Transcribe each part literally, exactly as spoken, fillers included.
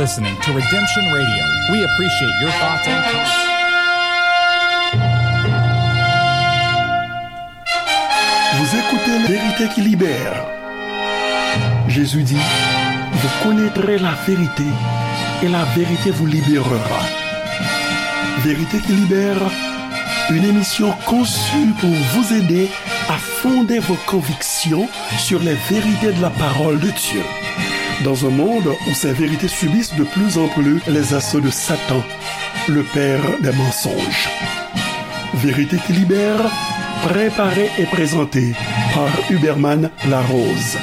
Listening to Redemption Radio. We appreciate your thoughts and comments. Vous écoutez Vérité qui libère. Jésus dit, vous connaîtrez la vérité et la vérité vous libérera. Vérité qui libère, une émission conçue pour vous aider à fonder vos convictions sur les vérités de la parole de Dieu. Dans un monde où ces vérités subissent de plus en plus les assauts de Satan, le père des mensonges. Vérité qui libère, préparée et présentée par Huberman Larose.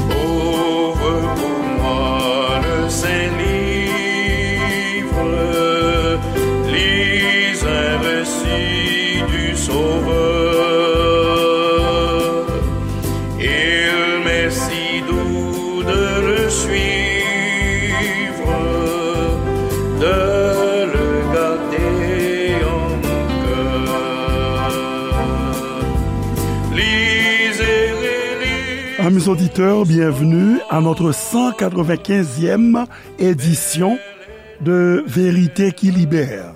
Ouvre pour moi le saint livre, lis un récit du Sauveur. Il m'est si doux de le suivre, de le garder en mon cœur. Lisez, relisez. Amis auditeurs, bienvenue à notre cent quatre-vingt-quinzième édition de Vérité qui Libère.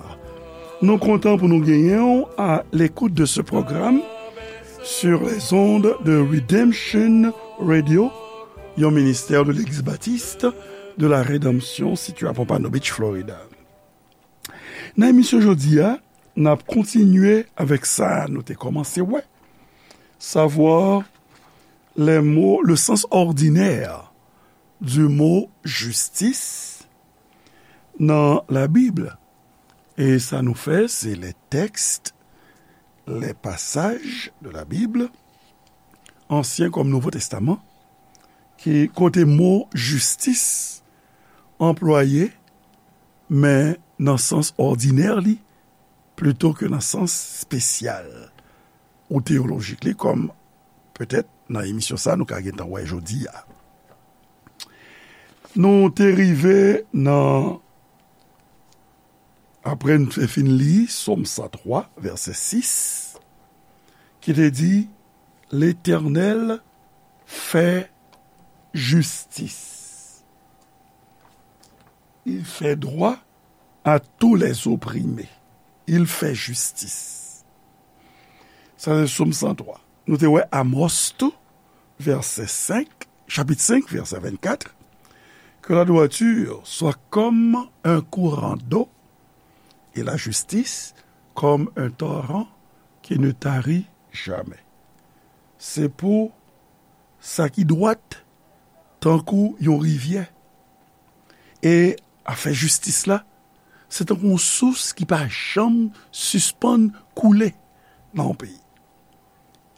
Nou kontan pou nou genyen w à l'écoute de ce programme sur les ondes de Redemption Radio, yon ministè de Legliz Batis de la Rédemption sitiye à Pompano Beach, Florida. Nan emisyon jodi a, n ap kontinye avèk sa nou te kòmanse wè, savoir les mots, le sens ordinaire du mot justice dans la Bible. E sa nou fè, se les textes, les passages de la Bible, Ansyen kòm Nouvo Testaman, ki kote mo jistis anplwaye, men nan sans òdinè li, plito ke nan sans espesyal ou teyolojik li, kòm petèt nan emisyon sa nou ka gentan wè jodi a. Nou te rive nan, apre n te fin li Sòm san twa, vèsè sis, ki te di, Letènèl fè jistis. Il fait droit à tous les opprimés. Il fait justice. Sa se Sòm san twa. Nou te wè Amòs tou, vèsè senk, chapit senk, vèsè vennkat, Que la droiture soit comme un courant d'eau et la justice comme un torrent qui ne tarit jamais. Se pou sa ki dwat tankou yon rivyè. E afè jistis la, se tankou yon sous ki pa janm sispann koule nan yon peyi.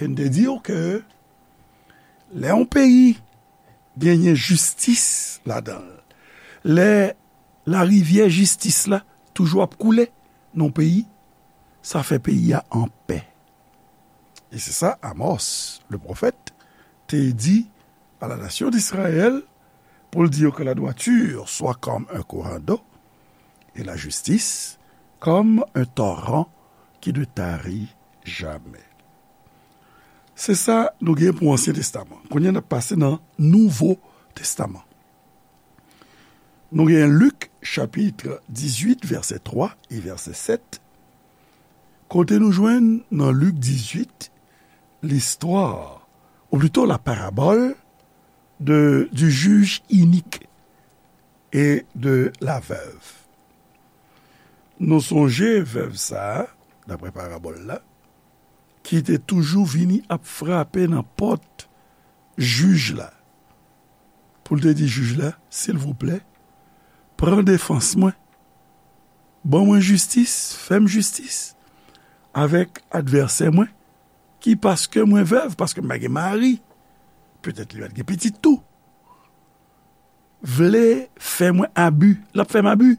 E n te di w ke lè yon peyi genyen jistis ladan l, lè larivyè jistis la toujou ap koule nan yon peyi, sa fè peyi a anpè. E se sa Amos, le pwofèt, te di à la nation d'Israël, pou l di yo que la droiture soit comme un courant d'eau et la justice comme un torrent qui ne tarit jamais. Se sa nou gen pou Ansyen Testaman. Kounye a n ap pase nan Nouvo Testaman. Nou gen Lik, chapit dizuit, vèsè twa e vèsè sèt. Kote nou jwenn nan Lik dizuit, listwa, ou plito la parabole de, du juge inique et de la veuve. Nou sonje vèv sa a, daprè parabòl la, ki te toujou vini ap frape nan pòt jij la, pou l te di jij la, silvouplè, pran defans mwen, ban mwen jistis, fè m jistis avèk advèsè mwen, ki paske mwen vèv, paske m pa gen mari, petèt li pa t gen pitit tou, vle fè mwen abi, l ap fè m abi.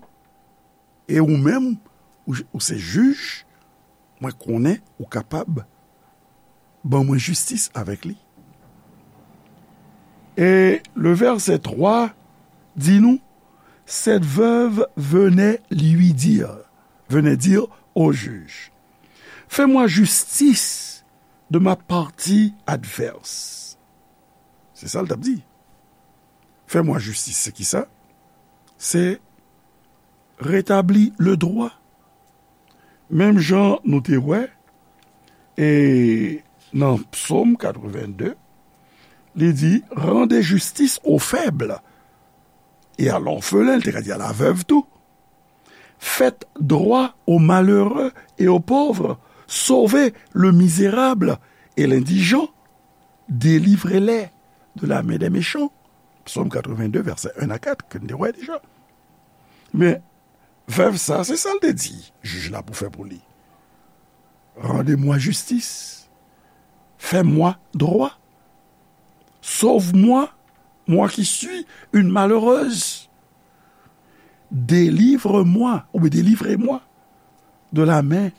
E ou menm, ou, ou se jij, mwen konnen ou kapab ban mwen jistis avèk li. Et le verset trois dit nous, cette veuve venait lui dire, venait dire au juge, Fais-moi justice de ma partie adverse. Se sa l t ap di. Fais-moi justice, se ki sa? Se retabli le droit. Menm jan nou te wè, e nan Psaume quatre-vingt-deux, li di, rendez justice aux faibles et à l'orphelin, li te ka di à la veuve tou. Faites droit aux malheureux et aux pauvres, sauvez le misérable et l'indigent, délivrez-les de la main des méchants. Psaume quatre-vingt-deux, verset un à quatre, ke n te wè deja. Men, vèv sa, se sa l te di jij la pou fè pou li. Rendez-moi justice. Fais-moi droit. Sauve-moi, moi qui suis une malheureuse. Délivre-moi, oubyen délivrez-moi de la main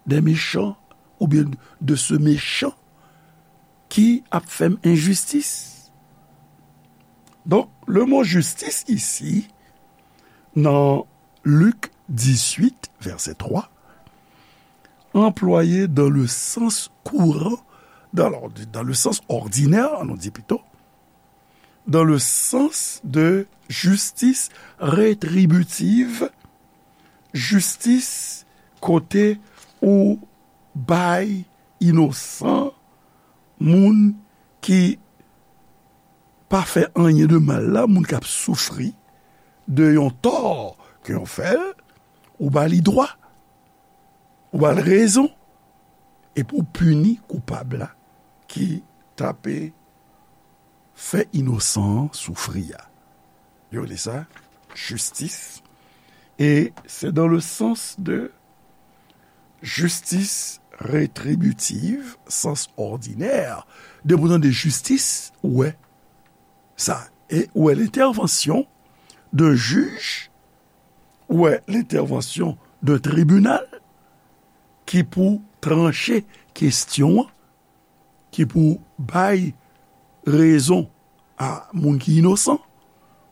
des méchants, oubyen de ce méchant ki ap fè m enjistis. Donk, le mo jistis isi, nan Lik dizuit, vèsè twa, anplwaye dans le sens courant, dans l'ordi-, dans le sens ordinaire, nou di pito, dans le sens de justice rétributive, jistis kote ou bay inosan, moun ki pa fè anyen de mal la, moun k ap soufri de yon tò ke yo fè l, ou ba li dwa, ou ba l rezon, epi ou pini koupab la ki t ape fè inosan an soufri a. Yo rele sa jistis. E se dans le sens de justice rétributive, sens ordinaire. Depi w tande jistis, ou wè sa. E ou wè l'intervention d'un juge, ou wè l'intervention d'un tribunal ki pou tranche kesyon an, ki pou bay rezon a moun ki inosan,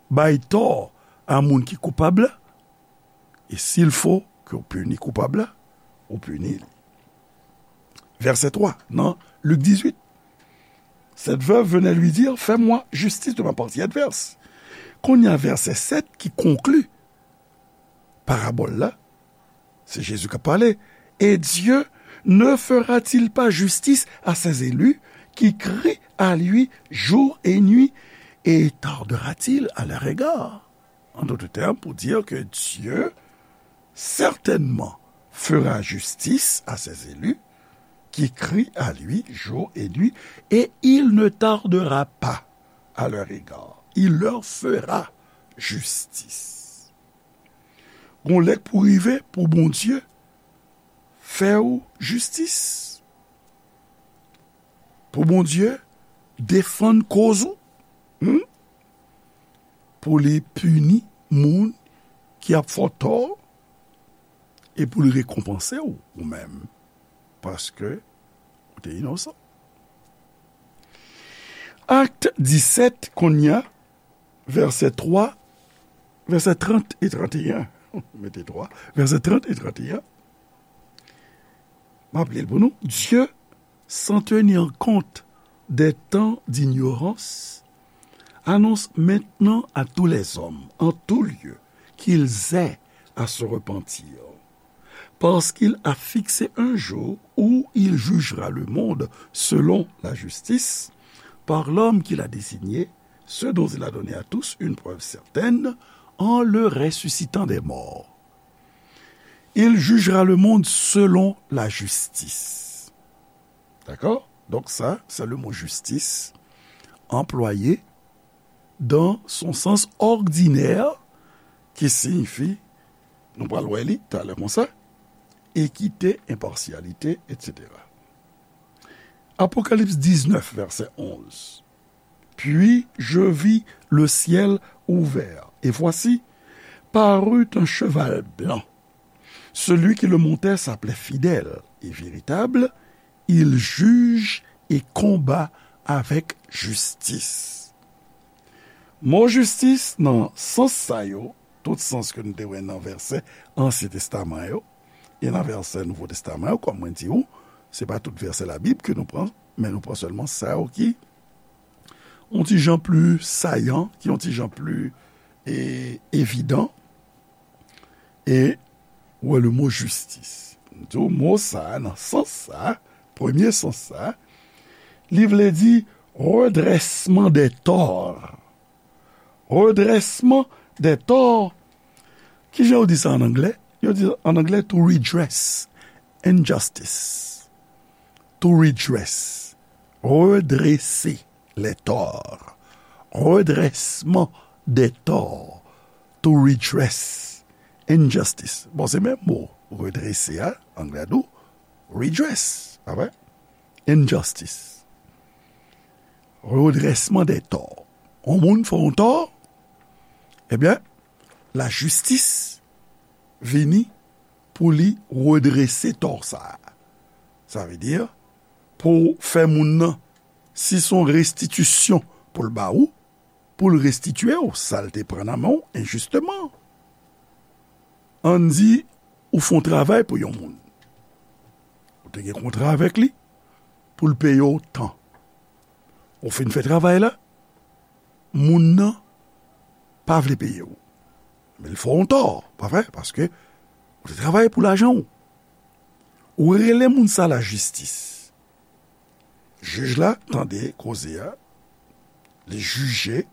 bay tò a moun ki koupab la, e s'il faut ke w pini koupab la, ou pini li. Vèsè twa, nan Lik dizuit. Cette veuve venait lui dire, fais-moi justice de ma partie adverse. Kounye a, vèsè sèt ki konkli parabòl la, se Jezi k ap pale. Et Dieu ne fera-t-il pas justice à ses élus qui crient à lui jour et nuit, et tardera-t-il à leur égard? En d'autres termes, pour dire que Dieu certainement fera justice à ses élus qui crient à lui jour et nuit, et il ne tardera pas à leur égard. Il leur fera justice. Gon lè k pou rive pou Bondye fè w jistis. Pou Bondye defann koz ou. Hmm? Pou li pini moun ki ap fè w tò e pou li rekonpanse w ou menm. Paske ou te inosan. Akt disèt, kounye a, vèsè twa, vèsè trant e tranteyen. Mete twa, vèsè trant e tranteyen. M ap li l pou nou. Dieu, sans tenir compte des temps d'ignorance, annonce maintenant à tous les hommes, en tout lieu, qu'ils aient à se repentir. Parce qu'il a fixé un jour où il jugera le monde selon la justice, par l'homme qu'il a désigné, ce dont il a donné à tous une preuve certaine, en le ressuscitant des morts. Il jugera le monde selon la justice. D'accord? Donc ça, c'est le mot justice employé dans son sens ordinaire, ki siyifi, nou pral wè li talè konsa, ekite, enpasyalite, etsetera. Apocalypse dix-neuf, verset onze. Puis je vis le ciel ouvert, et voici, parut un cheval blanc. Celui qui le montait s'appelait Fidèle et Véritable, il juge et combat avec justice. Mo jistis nan sans sa yo, tout sans ke nou te wè nan vèsè Ansyen Testaman yo, e nan vèsè Nouvo Testaman yo, kòm mwen di w, se pa tout vèsè Labib ke nou pran, men nou pran sèlman sa yo ki yon ti jan pli sayan, ki yon ti jan pli, e, evidan. E, ou wè le mo jistis. M di w, mo sa a, nan sans sa a, premye sans sa a, li vle di redrèsman dè tò. Redrèsman dè tò. Kijan yo di sa an anglè? Yo di an anglè to redress injustice. To redress. Redrese les torts. Redrèsman dè tò. To redress injustice. Bon, se menm mo. Redrese a, anglè a di w redress. Pa vre? Injustice. Redrèsman dè tò. Yon moun fè yon tò, ebyen, lajistis vini pou li redrese tò sa a. Sa vle di, pou fè moun nan, si se yon restitisyon pou l ba ou, pou l restitye w sa l te pran nan men w enjisteman. Ann di, ou fè yon travay pou yon moun. Ou te gen kontra avèk li pou l peye w tan. Ou fin fè travay la, moun nan pa vle peye w. Men l fè w yon tò, pa vre? Paske ou te travay pou lajan w. Ou rele moun sa lajistis. Jij la tande koze a, li jije,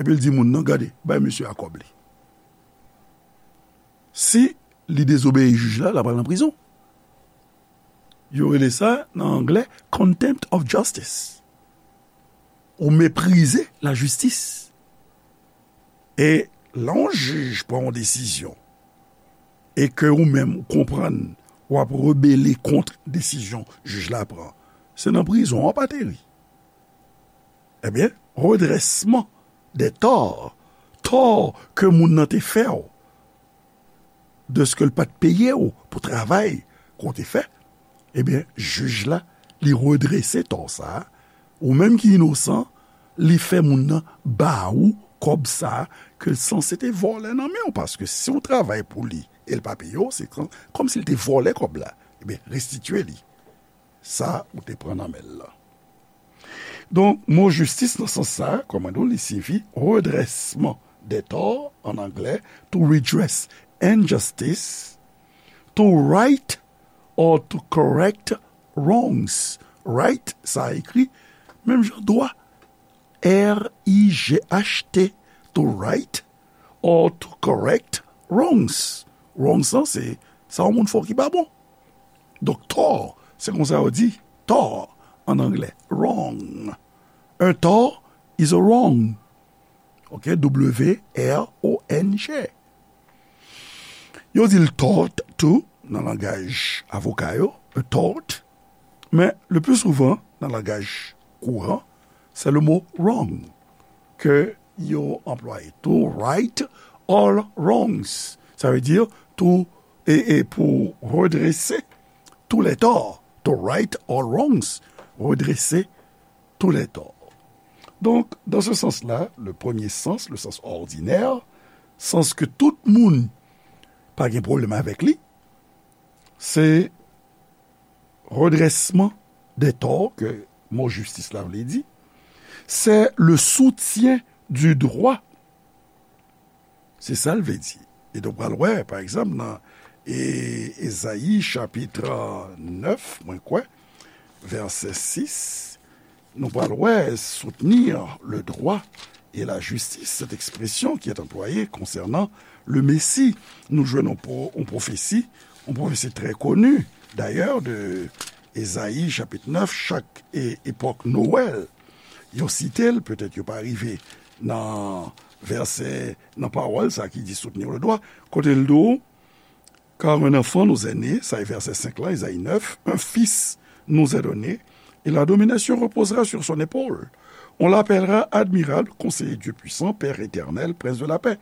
epi l di moun nan, "Gade, bay misye a kòb li." Si li dezobeyi jij la, l ap al nan prizon. Yo rele sa, nan anglè, contempt of justice. Ou meprize lajistis. E lè yon jij pran yon desizyon, e ke ou menm ou konprann w ap rebele kont desizyon jij la pran, se nan prizon w ap ateri. Ebyen, redrèsman dè tò, tò ke moun nan te fè w, dèske l pa t peye w pou travay ke w te fè, ebyen, jij la, li redrese tò sa a, ou menm ki inosan, li fè moun nan ba ou kòb sa a ke l sanse te vòlè nan men w, paske si w travay pou li e l pa peye w, se kòm, kòmsi l te vòlè kòb la. Ebyen, restitye li sa ou te pran nan men l lan. Donk, mo jistis nan sans sa a, kòm mwen di w, li siyifi redrèsman dè tò, an anglè, to redress injustice, to right or to correct wrongs. Right, sa ekri menm jan dwa, R I G H T, to right or to correct wrongs. Wrongs lan, se sa yon moun fè w ki pa bon. Donk, tò, se konsa yo di tò an anglè, wrong. Un tort is a wrong. Ok, W R O N G. Yo di l tort tou nan langaj avoka yo, a tort. Men, le plus souvent, nan langaj kouran, se le mo wrong ke yo anplwaye. To right all wrongs. Sa vle di tou, e, e pou redrese tous les torts. To right all wrongs. Redrese tous les torts. Donk, dans ce sens-là, le premier sens, le sens ordinaire, sans ke tout moun pa gen pwoblèm avèk li, se redrèsman dè tò ke mo jistis la vle di, c'est le soutien du droit. Se sa l vle di. E donk, w pral wè, pa egzanp, nan e, Ezayi chapit nèf, mwen kwè, vèsè sis, nou pral wè soutenir le droit et la justice, cette expression qui est employée concernant le Messie. Nou jwenn yon pwo-, yon pwofesi, yon pwofesi trè koni, dayè, de Ezayi chapit nèf, chak e, epòk Nwèl, yo site l, petèt yo pa rive nan vèsè, nan pawòl sa ki di soutenir le droit, kote l di w, car un enfant nous est né, sa e vèsè senk la, Ezayi nèf, un fils nous est donné, et la domination reposera sur son épaule. On l'appellera admirable, conseiller Dieu puissant, Père éternel, prince de la paix.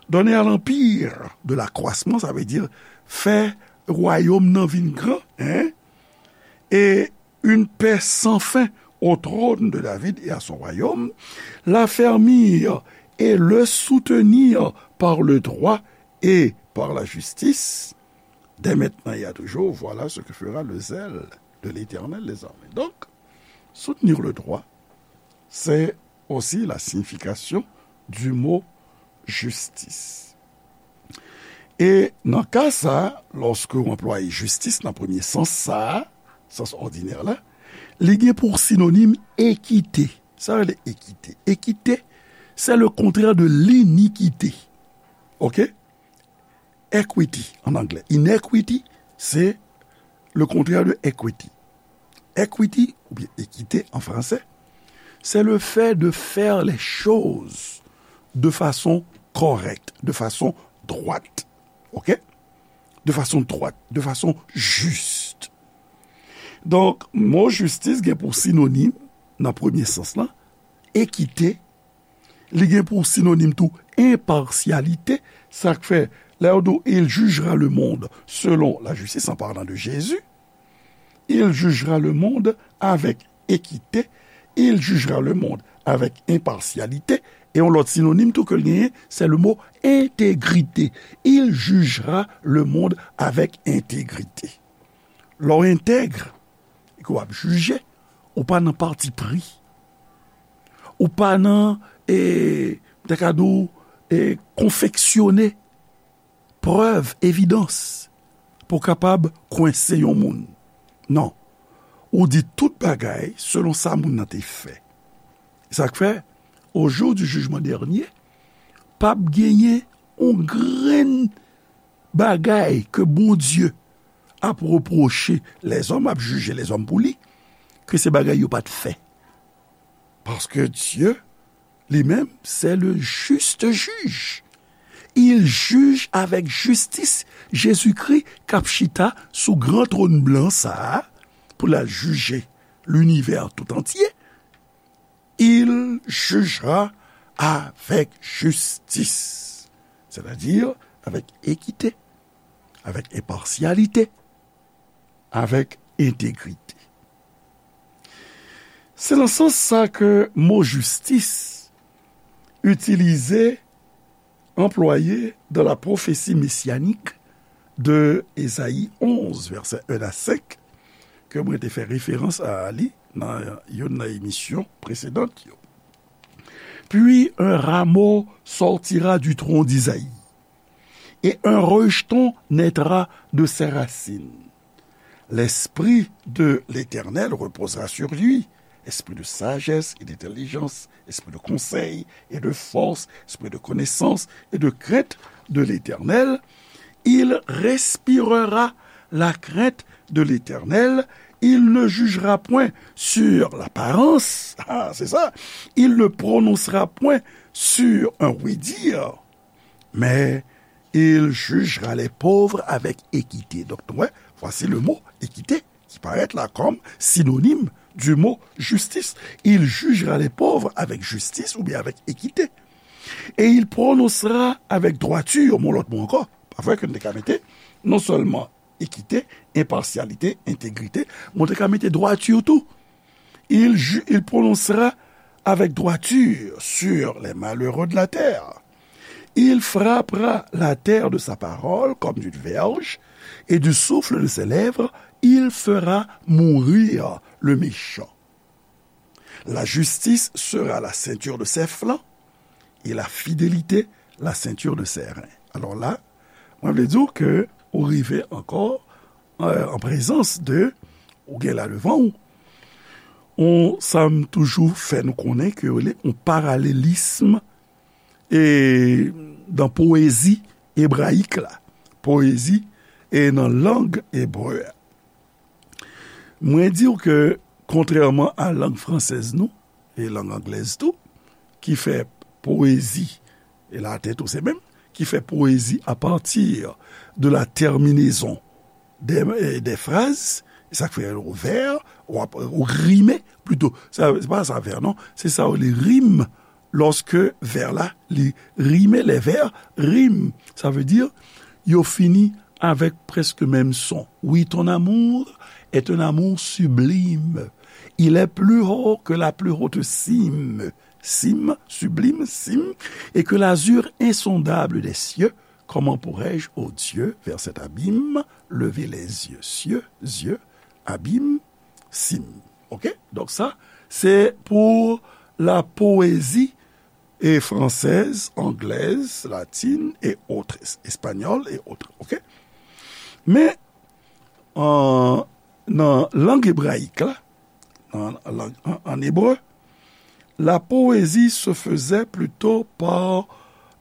Donner à l'empire de l'accroissement, sa vle di fè wayòm nan vin gran, hein? Et une paix sans fin au trône de David et à son royaume, l'affermir et le soutenir par le droit et par la justice, dès maintenant et à toujours, voilà ce que fera le zèle de l'Éternel des armées. Donc, soutenir le droit, c'est aussi la signification du mot justice. E nan ka sa, lòske w anplwaye jistis nan premye sans sa, sans òdinè la, li gen pou sinonim ekite. Sa rele ekite. Ekite, c'est le contraire de l'iniquité. Ok? Equity en anglais. Inequity, c'est le contraire de equity. Equity, ou bien équité en français, c'est le fait de faire les choses de façon correcte, de façon droite. Ok? De façon droite, de façon juste. Donk, mo jistis gen pou sinonim, nan premye sans lan, ekite, li gen pou sinonim tou enpasyalite, sa k fè, lè yo di w, il jugera le monde selon la justice, en parlant de Jésus, il jugera le monde avec équité, il jugera le monde avec impartialité, e yon lòt sinonim tou ke l genyen, se le mo entegrite. Il jugera le monde avec intégrité. Lè w entèg, e ke w ap jije, ou pa nan pati pri. Ou pa nan, e, m ta ka di w, e, konfeksyone prèv, evidans, pou w kapab kwense yon moun. Non. Ou di tout bagay selon sa moun nan te fè. Sa k fè, au jour du jugement dernier, p ap genyen yon grenn bagay ke Bondye ap repwoche lèzòm, ap jije lèzòm pou li, ke se bagay yo pa t fè. Paske Dye, li menm, c'est le juste juge. Il juge avec justice. Jezikri k ap chita sou gran twòn blan sa a pou l al jije linivè tout antye. Il jugera avec justice, c'est-à-dire avec équité, avec impartialité, avec intégrité. Se nan sans sa ke mo jistis itilize, anplwaye dans la prophétie messianique de Ezayi onz, vèsè en a senk, ke mwen te fè referans a li nan youn nan emisyon presedan yo. Puis un rameau sortira du tronc d'Isaïe, et un rejeton naîtra de ses racines. L'esprit de l'Éternel reposera sur lui, esprit de sagesse et d'intelligence, esprit de conseil et de force, esprit de connaissance et de crainte de l'Éternel. Il respirera la crainte de l'Éternel. Il ne jugera point sur l'apparence. Ah, c'est ça. Il ne prononcera point sur un oui-dire, mais il jugera les pauvres avec équité. Donc, ouais, voici le mot équité qui paraît là comme synonyme du mot justice. Il jugera les pauvres avec justice ou bien avec équité. Et il prononcera avec droiture, mon lòt mo ankò. Pa vre ke nou te ka mete non sèlman ekite, enpasyalite, entegrite, men ou te ka mete dwati tou. Il, ju- il prononcera avec droiture sur les malheureux de la terre. Il frappera la terre de sa parole comme d'une verge, et du souffle de ses lèvres, il fera mourir le méchant. La justice sera la ceinture de ses flancs, et la fidélité la ceinture de ses reins. Alò la, mwen vle di w ke ou rive ankò, euh, an prezans de, ou gen la devan w, on, sa m toujou fè nou konnen ke yo rele on paralelism e nan powezi ebrayik la, powezi e nan lang ebre a. Mwen di w ke, kontrèman a lang fransèz nou, e lang anglèz tou, ki fè powezi, e laten tou se menm, ki fè powezi apati de la tèminezon de, e, de fraz, e sa k fè yo vè, w ap, ou rime, plito, sa, se pa sa vè, non, se sa yo rele rim, lòske vè la, li rime, les vers riment, sa vle di, yo fini avèk prèske menm son. Oui, ton amour est un amour sublime. Il est plus haut que la plus haute cime. Cime, sublime, cime, et que l'azur insondable des cieux. Comment pourrais-je, ô Dieu, vers cet abîme lever les yeux. Cieux, yeux, abîme, cime. Ok? Donk sa, se pou la poésie et française, anglaise, latine et autres, espagnole et autres. Ok? Men, an, nan lang ebrayik la, nan lang, an, an ebre, la poésie se faisait plutôt par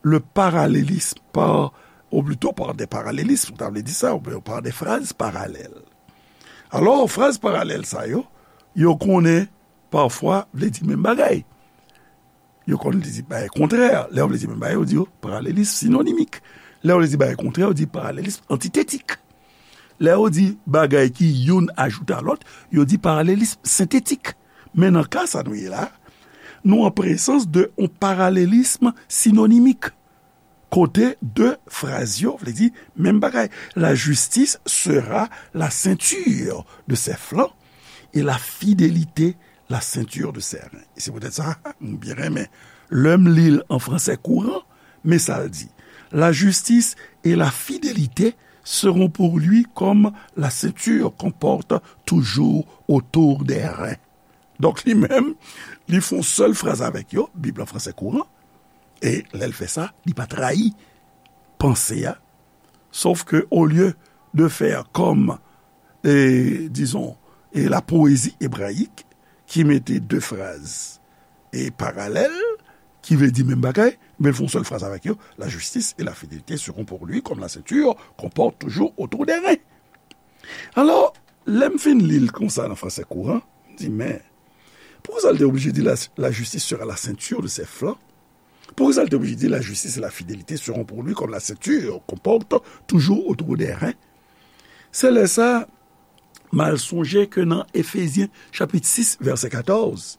le parallélisme, par, ou plutôt par des parallélismes, sa vle di sa, ou par des phrases parallèles. Alò, fraz paralèl sa yo, yo konnen pafwa vle di menm bagay. Yo konn li di bagay kontrè. Lè yo vle di menm bagay, yo di yo paralelism sinonimik. Lè yo vle di bagay kontrè, yo di paralelism antitetik. Lè yo di bagay ki youn ajoute a lòt, yo di paralelism sentetik. Men nan ka sa nou ye la, nou an prezans de yon paralelism sinonimik. Kote de fraz yo vle di menm bagay. La justice sera la ceinture de ses flancs et la fidélité la ceinture de ses reins. E se poutèt sa, m byen renmen lè m li l an fransè kouran, men sa l di, la justice et la fidélité seront pour lui comme la ceinture qu'on porte toujours autour des reins. Donk, li menm, li fè yon sèl fraz avèk yo, Bib la fransè kouran, e lè l fè sa, li pa trayi panse a, sof ke, olye de fè kòm, e, dizon, e la poésie hébraïque, ki mete de fraz e paralèl, ki vle di menm bagay, men l fè yon sèl fraz avèk yo, la justice et la fidélité seront pour lui comme la ceinture qu'on porte toujours autour des reins. Alò, lè m fin li l konsa nan fransè kouran, m di, men, poukisa l te oblije di la, la justice sera la ceinture de ses flancs? Poukisa l te oblije di la justice et la fidélité seront pour lui comme la ceinture qu'on porte toujours autour des reins? Se lè sa, m al sonje ke nan Efezyen chapit sis, vèsè katòz,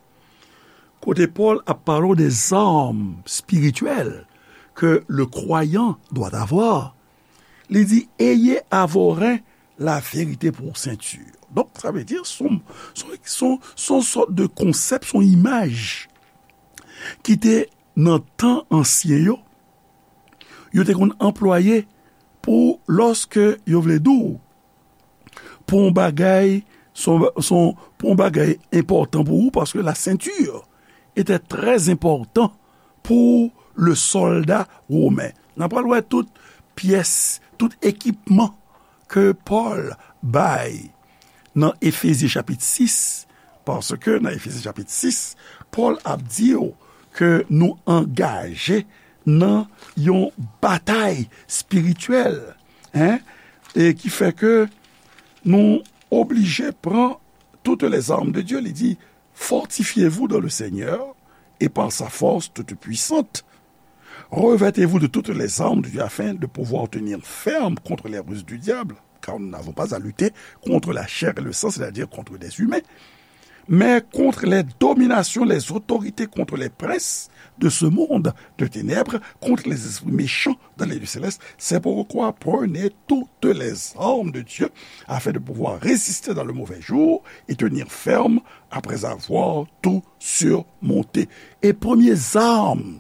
kote Pòl ap pale de zam espirityèl ke le croyant doit avoir, li di, ayez à vos reins la vérité pour ceinture. Donk, sa vle di, se yon, se yon, se yon, se yon sòt de konsèp, se yon imaj ki te nan tan ansyen yo, yo te konn anplwaye pou lòske yo vle di w, pou yon bagay, se yon, se yon, pou yon bagay enpòtan pou ou, paske la ceinture était très important pour le soldat romain. N a pral wè tout pyès, tout ekipman ke Pòl bay nan Efezyen chapit sis, paske nan Efezyen chapit sis, Pòl ap di w ke nou angaje nan yon batay espirityèl, en, e ki fè ke nou oblije pran toutes les armes de Dieu. Li di, fortifiez-vous dans le Seigneur et par sa force toute puissante. Revêtez-vous de toutes les armes de Dieu afin de pouvoir tenir ferme contre les ruses du diable, car nous n'avons pas à lutter contre la chair et le sang, c'est-à-dire contre des humains, mais contre les dominations, les autorités, contre les princes de ce monde de ténèbres, contre les esprits méchants dans les lieux célestes. C'est pourquoi prenez toutes les armes de Dieu afin de pouvoir résister dans le mauvais jour et tenir ferme après avoir tout surmonté. E premye zam,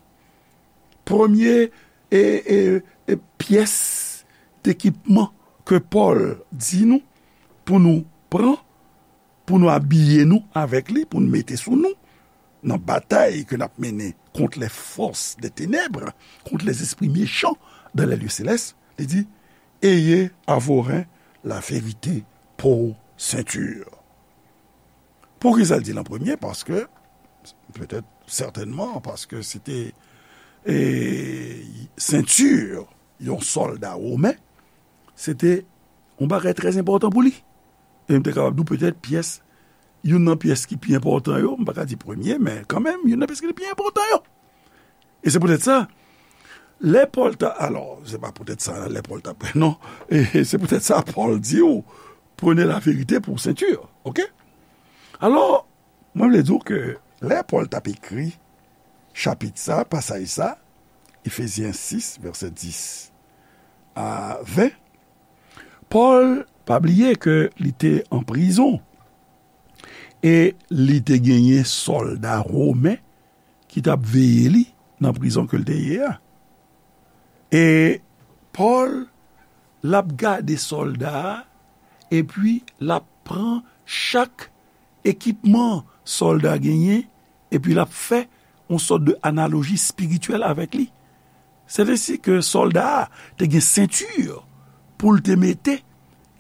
premye, e, e, e pyès dekipman ke Pòl di nou pou nou pran, pou nou abiye nou avèk li, pou nou mete sou nou, nan batay ke n ap mennen kont les forces des ténèbres, kont les esprits méchants dans les lieux célestes, li di, ayez à vos reins la vérité pour ceinture. Poukisa l di l an premye? Paske, petèt, sètènman, paske se te, e, senti yon sòlda women, se te yon bagay trè enpòtan pou li. E m te kapab di w petèt pyès, youn nan pyès ki pi enpòtan yo, m pa ka di premye, men kanmenm, youn nan pyès ki pi enpòtan yo. E se poutèt sa, lè Pòl ta, alò, se pa poutèt sa, lè Pòl ta, non, e se poutèt sa Pòl di w, prenez la vérité pour ceinture, ok? Alò, mwen vle di w ke lè Pòl t ap ekri chapit sa, pasaj sa, Efezyen sis, vèsè dis a ven, Pòl pa bliye ke li te an prizon e li te genyen sòlda women ki t ap veye li nan prizon ke l te ye a. E Pòl l ap gade sòlda a, epi l ap pran chak ekipman sòlda genyen, epi l ap fè yon sòt de analoji espirityèl avèk li. Sètadi ke sòlda a te gen senti pou l te mete,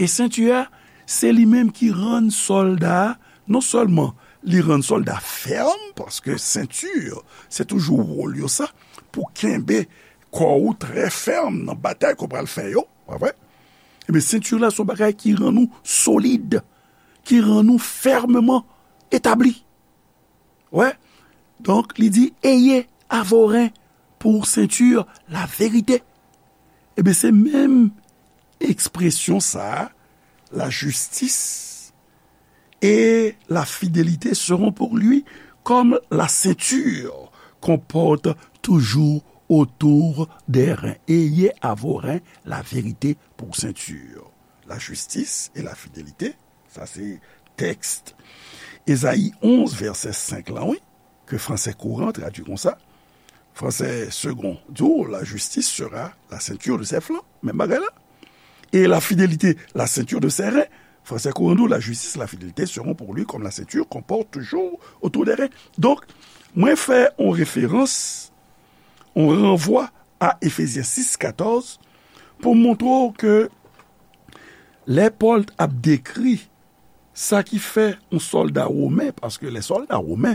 e senti a, se li menm ki rann sòlda a, non sèlman li rann sòlda fèm, paske senti, se toujou wòl yo sa, pou kenbe kò ou trè fèm nan batay ke w pral fè yo, pa vre? Ebyen, senti la se yon bagay ki rann ou solid, ki rann ou fèmman etabli. Wè? Donk, li di, ayez à vos reins pour ceinture la vérité. Ebyen, se menm ekspresyon sa a, la justice et la fidélité seront pour lui comme la ceinture qu'on porte toujours autour des reins. Ayez à vos reins la vérité pour ceinture. La justice et la fidélité, sa se tèks Ezayi onz, vèsè senk lan, wi, ke fransè kouran tradui konsa. Fransè segond di w, la justice sera la ceinture de ses flancs. Menm bagay la. Et la fidélité, la ceinture de ses reins. Fransè kouran di w, la justice, la fidélité seront pour lui comme la ceinture qu'on porte toujours autour des reins. Donk, mwen fè yon referans, yon ranvwa a Efezyen sis katòz pou montre w ke lè Pòl ap dekri sa ki fè yon sòlda women, paske les soldats romains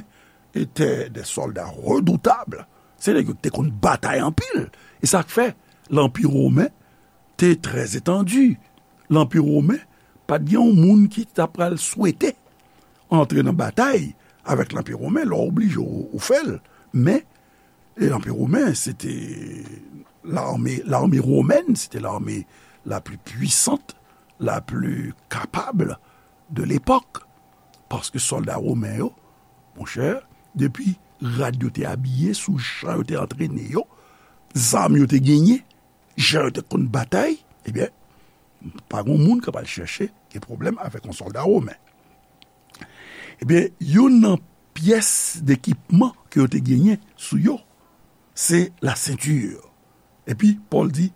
étaient des soldats redoutables, se nèg yo ki te konn batay anpil. E sa k fè Lanpi Women te trè etandi. Lanpi Women pa t gen yon moun ki ta pral swete antre nan batay avèk Lanpi Women, lè w oblije ou, ou fè l. Men, e Lanpi Women, se te l'armée, l'armée romaine, se te l'armée la plus puissante, la plus capable de l'époque. Paske sòlda women yo, monchè, depi rad yo te abiye, sou jan yo te antrene yo, zam yo te genyen, jan yo te konn batay, ebyen, pa gen moun k ap al chèche gen pwoblèm avèk yon sòlda women. Ebyen, youn nan pyès dekipman ke yo te genyen sou yo, se la ceinture. Epi, Pòl di,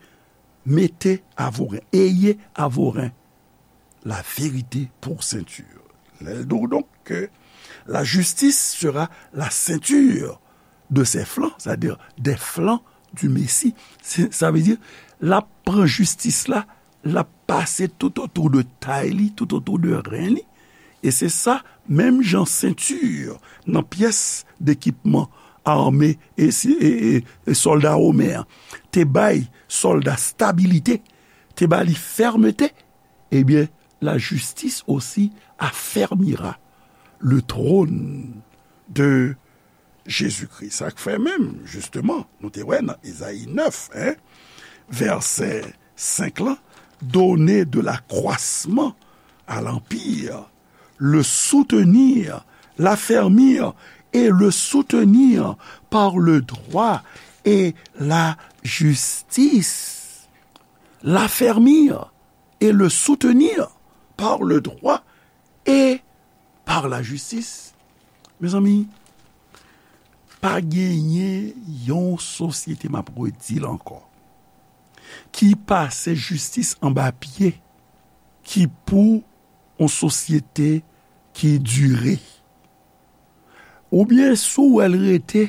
mettez à vos reins, ayez à vos reins la vérité pour ceinture. Lè l di w donk ke la justice sera la ceinture de ses flancs, c'est-à-dire des flancs du Messie. Se, sa vle di, l ap pran jistis la, l ap pase tout otou de tay li, tout otou de ren li. E se sa, menm jan senti nan pyès dekipman ame e, si- e, e, e sòlda women an te bay sòlda stabilite, te ba li fèmte, ebyen, la justice aussi affermira le trône de Jésus-Christ. Sa k fè menm, jisteman, nou te wè nan Ezayi nèf, en, vèsè senk lan, donner de l'accroissement à l'empire, le soutenir, l'affermir et le soutenir par le droit et la justice. L'affermir et le soutenir par le droit et par la justice. Mezanmi, pa genyen yon sosyete, m ap redi l ankò, ki pase jistis anba pye, ki pou yon sosyete ki dire. Oubyen si w wè l rete,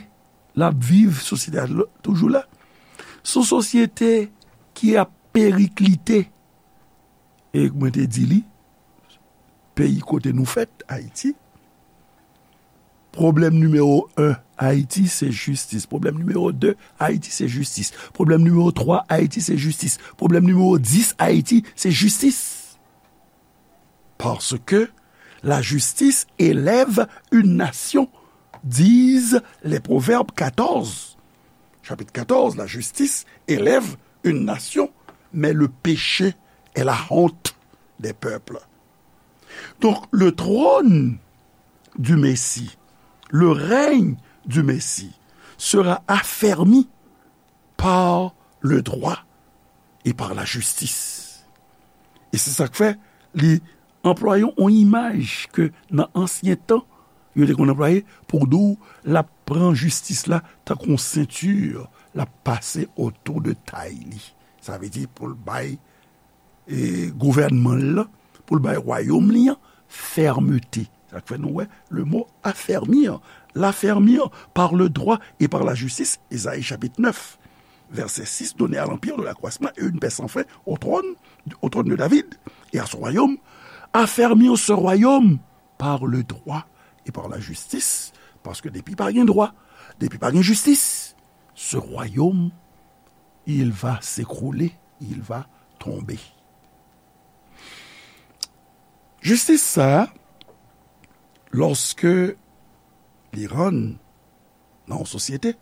l ap viv, sosyete a toujou la. Se yon sosyete ki ap periklite. E mwen te di li, peyi kote nou fèt, Ayiti, pwoblèm nimewo en Ayiti, se jistis. Pwoblèm nimewo de Ayiti, se jistis. Pwoblèm nimewo twa Ayiti, se jistis. Pwoblèm nimewo dis Ayiti, se jistis. Parce que la justice élève une nation, disent les Proverbes quatorze. Chapitre quatorze, la justice élève une nation, mais le péché est la honte des peuples. Donc, le trône du Messie, le règne du Messie sera affermi par le droit et par la justice. E se sa k fè li anplwaye yon imaj ke nan ansyen tan, yo te konn anplwaye pou di w l ap pran jistis la tankou yon senti, l ap pase otou de tay li. Sa vle di pou l bay e gouvènman l lan, pou l bay wayòm li an fèmte. Sa k fè nou wè le mot affermir, l'affermir par le droit et par la justice, Esayi chapit nèf, vèsè sis, donner à l'empire de l'accroissement et une paix sans fin au trône, au trône de David et à son royaume, affermir ce royaume par le droit et par la justice, paske depi pa gen dwa, depi pa gen jistis, ce royaume, il va s'écrouler, il va tomber. Jistis sa a, lòske li rann nan yon sosyete,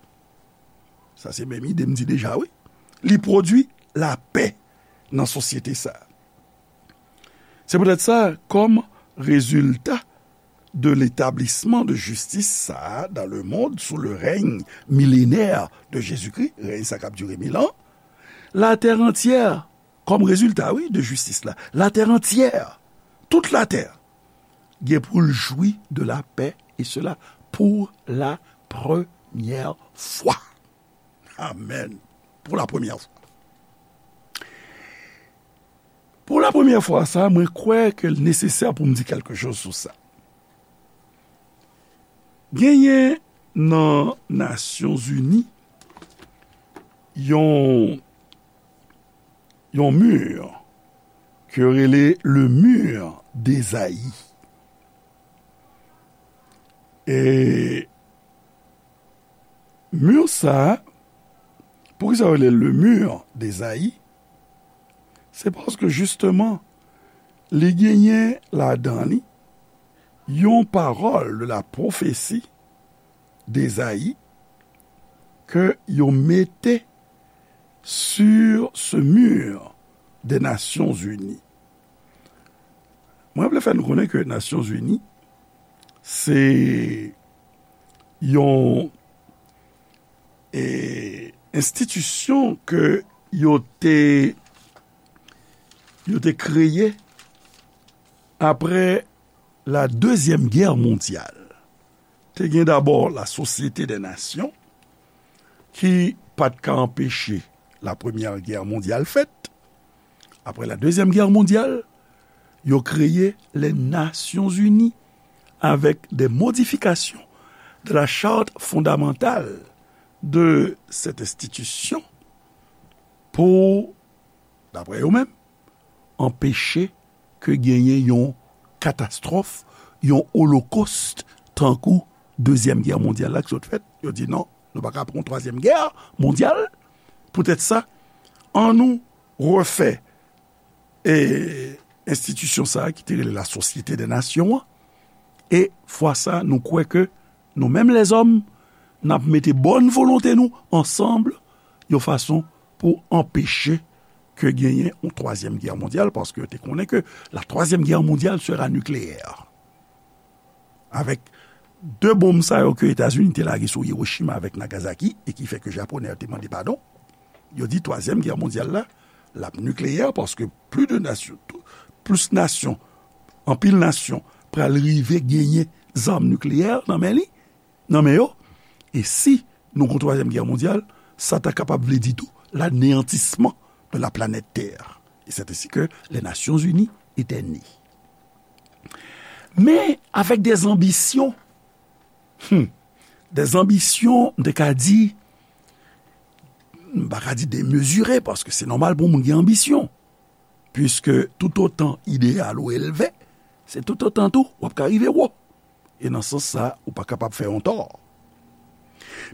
sa se menm ide m di deja, wi, li pwodui lapè nan sosyete sa a. Se poutèt sa, kòm rezilta de l'établissement de justice sa a dans le monde sous le règne millénaire de Jésus-Christ, règne sa k ap dire mil an, la terre entière, kòm rezilta, wi, de jistis la, la terre entière, tout latè, gen pou l jwi de la paix, et cela pour la première fois. Amen. Pour la première fois. Pou la premyè fwa sa, mwen kwè ke l nesesè pou m di kèlke choz sou sa. Genyen nan Nasyonzini yon, yon mi ke yo rele le mur d'Esaïe. E mi sa a, poukisa yo rele le mur d'Esaïe? Se paske jisteman, li genyen ladan li yon pawòl de la pwofesi d'Esaïe ke yo mete sur ce mur des Nations Unies. Mwen vle fè nou konnen ke Nasyonzini se yon, e, enstitisyon ke yo te, yo te kreye apre la Dezyèm Gè Mondyal. Te gen dabò la Sosyete dè Nasyon ki pa t ka anpeche la Premyè Gè Mondyal fèt. Apre la Dezyèm Gè Mondyal, yo kreye les Nations Unies avec des modifications de la charte fondamentale de cette institution pou, daprè yo menm, anpeche ke genyen yon katastwòf, yon olokost, tankou Dezyèm Gè Mondyal la ki sot fèt. Yo di non, nou pa ka pran yon twazyèm gè mondyal. Poutèt sa, annou refè, e, enstitisyon sa a ki te rele la Sosyete dè Nasyon an. E fwa sa, nou kwè ke nou menm lèzòm, n ap mete bòn volonte nou ansanm yon fason pou anpeche ke genyen yon twazyèm gè mondyal, paske yo te konnen ke la Troisième Guerre mondiale sera nucléaire. Avèk de bonm sa yo ke Etazini te lage sou Hiroshima avèk Nagasaki, e ki fè ke Japonè yo te mande padon, yo di twazyèm gè mondyal la, l ap nikleyè, paske plis de nasyon, tou, plis nasyon, anpil nasyon pral rive genyen zam nikleyè nan men li, nan men yo. E si nou gon twazyèm gè mondyal, sa ta kapab vle di tou l'anéantissement de la planète Terre. Et c'est ainsi que les Nations Unies étaient nées. Men avèk de zanbisyon, hmm, de zanbisyon, m te ka di, m pa ka di demezire, paske se nòmal pou moun gen anbisyon. Piske toutotan ideyal ou elve, se toutotan tou w ap ka rive wo. E nan sans sa, ou pa kapab fè yon tò.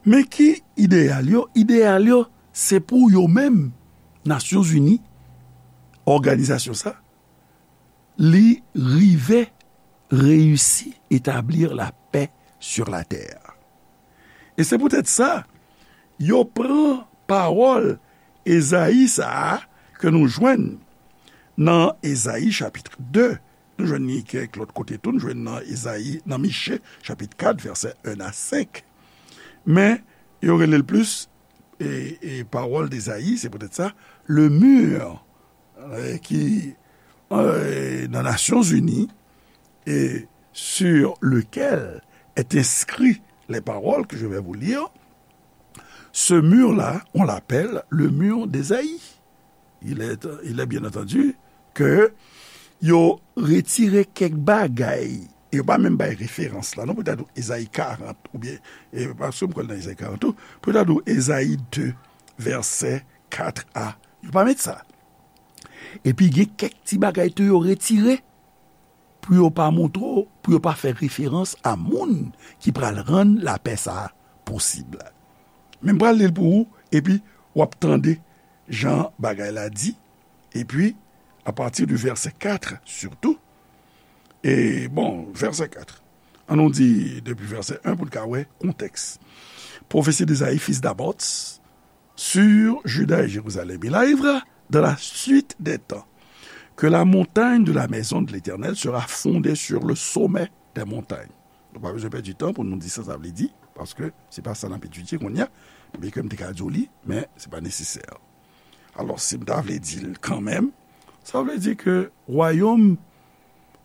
Men ki ideyal yo? Ideyal yo, se pou yo menm, Nasyonzini, òganizasyon sa, li rive reyisi etablir la pè sur la tè. E se poutèt sa, yo pran pawòl Ezayi sa a ke nou jwenn nan Ezayi chapit de, nou jwenn li kèk lòt kote tou, nou jwenn nan Ezayi, nan Miche chapit kat, vèsè en a senk. Men, yo rele l plis, e, e, pawòl d'Ezayi, se poutèt sa, le mur, e, ki, e, nan Nasyonzini, et sur lequel est inscrit les paroles que je vais vous lire, ce mur-là, on l'appelle le mur d'Ésaïe. Il est, il est bien entendu ke yo retire kèk bagay, e yo pa menm bay referans la, non, pou ta di w Ezayi karant, oubyen, e, paske m kwè l nan Ezayi karant tou, pou ta di w Ezayi de, vèsè kat a, yo pa met sa. Epi gen kèk ti bagay tou yo retire, pou yo pa montre w, pou yo pa fè referans a moun ki pral rann lapè sa a posib. Men m pral li l pou ou, epi w ap tande jan bagay la di, epi apati di vèsè kat, sitou, e, bon, vèsè kat. An nou di depi vèsè en pou n ka wè kontèks. Prophétie d'Ésaïe, fils d'Amoz, sur Juda et Jérusalem. Il arrivera dans la suite des temps que la montagne de la maison de l'Éternel sera fondée sur le sommet des montagnes. Nou pa bezwen pèdi tan pou nou di sa sa vle di, paske se pa sa n ap etidye kounye a, byenke m te ka di w li, men se pa nesesè. Alò, si m ta vle di l kanmenm, sa vle di ke wayòm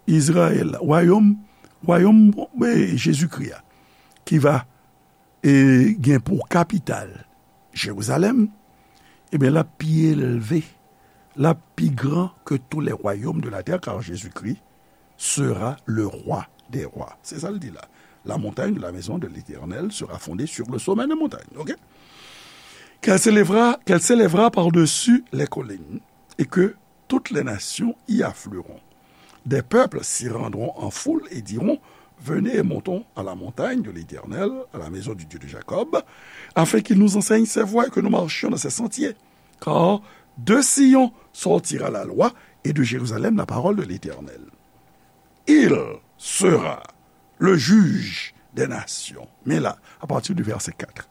Izrayèl la, wayòm, wayòm, e, Jezikri a, ki va, e, gen pou kapital Jerizalèm, ebyen, l ap pi elve, l ap pi gran que tous les royaumes de la terre, car Jésus-Christ sera le roi des rois. Se sa l di la. La montagne de la maison de l'Éternel sera fondée sur le sommet des montagnes. Ok? Qu'elle s'élèvera, qu'elle s'élèvera par-dessus les collines, et que toutes les nations y afflueront. Des peuples s'y rendront en foule et diront, venez et montons à la montagne de l'Éternel, à la maison du Dieu de Jacob, afin qu'il nous enseigne ses voies et que nous marchions dans ses sentiers. Car de Sion sortira la loi et de Jérusalem la parole de l'Éternel. Il sera le juge des nations. Men la, à partir du verset quatre.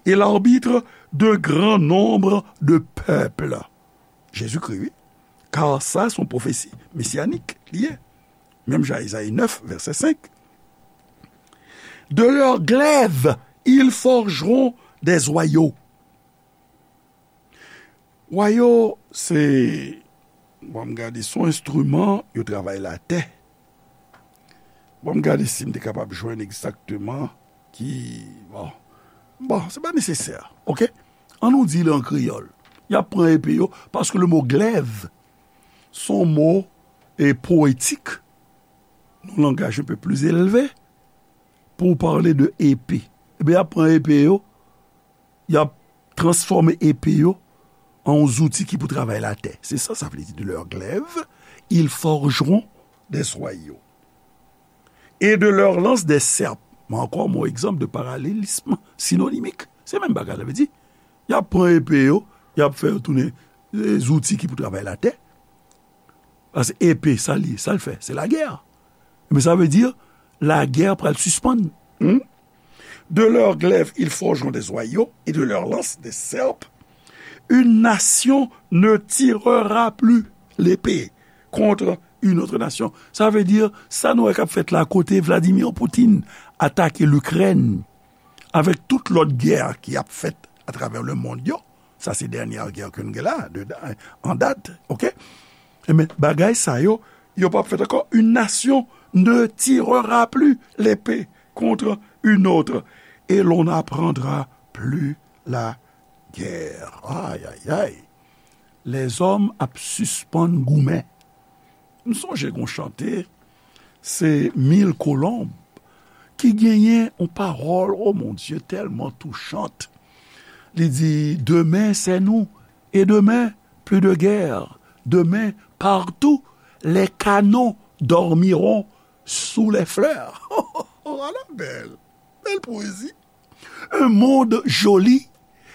Et l'arbitre d'un grand nombre de peuples. Jésus-Christ, wi. Car sa, se yon pwofesi mesyanik li ye. Menm jan Ezayi nèf, vèsè senk. De leurs glaives, ils forgeront des joyaux. Joyaux, se, bon, m gade, se yon enstriman yo travay latè. Bon, m gade si m te kapab jwenn egzakteman ki, bon, bon, se pa nesesè, ok? An nou di l an kreyòl. Y ap pran epe yo, paske le mo glaive, se yon mo, e, poetik, nan langaj un peu plus élevé, pou pale de epe. Ebyen, y ap pran epe yo, y ap transfòme epe yo an yon zouti ki pou travay latè. Se sa sa vle di, de leurs glaives, ils forgeront des joyaux. Et de leurs lances des serpes. Men ankò, yon egzanp de paralelisme synonymique. Se menm bagay la, vle di, y ap pran epe yo, y ap fè yo tounen, e, zouti ki pou travay latè. Paske epe, sa l ye, sa l fè, se lagè. Men sa vle di, lagè pral sispann. Hmm? De leurs glaives, ils forgeront des joyaux, et de leurs lances des serpes. Une nation ne tirera plus l'épée contre une autre nation. Sa vle di, sa nou wè k ap fèt la, kote Vladimir Putin atake Likrèn, avèk tout lòt gè ki ap fèt atravè lemonn yo, sa se dènyè gè ke nou gen la, de, an dat, ok? Ebyen, bagay sa yo, yo p ap fèt ankò. Une nation ne tirera plus l'épée contre une autre, et l'on n'apprendra plus la guerre. Ay, ay, ay. Lèzòm ap sispann goumen. M sonje gon chante, se Mille Colombes, ki genyen yon pawòl, oh mon Dieu, tèlman touchant. Li di, demain, c'est nous. Et demain, plus de guerre. Demain, partout, les canons dormiront sous les fleurs. Ala bèl, bèl poésie. Un monde joli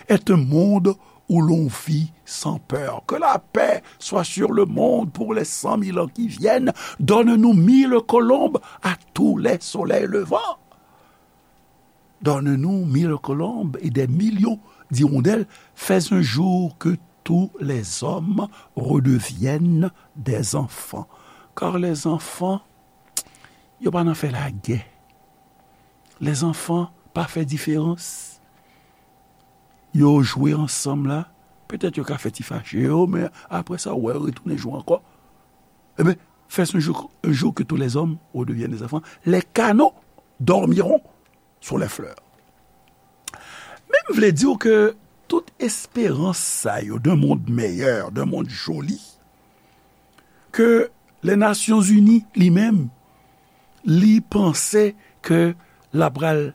est un monde où l'on vit sans peur. Que la paix soit sur le monde pour les cent mille ans qui viennent. Donne-nous mille colombes à tous les soleils levants. Donne-nous mille colombes et des millions d'hirondelles. Fais un jour que tous les hommes redeviennent des enfants. Car les enfants, yo pa nan fè lagè. Lèzanfan pa fè diferans. Yo jwe ansanm la, petèt yo ka fè ti fache yo, men apre sa, ou wè yo retounen jwe ankò. Ebyen, fais un jour, un jour que tous les hommes redeviennent des enfants. Les canons dormiront sous les fleurs. Men m vle di w ke tout esperans sa yo d'un monde meilleur, d'un monde joli, ke Lè Nasyonzini li menm, li panse ke l ap pral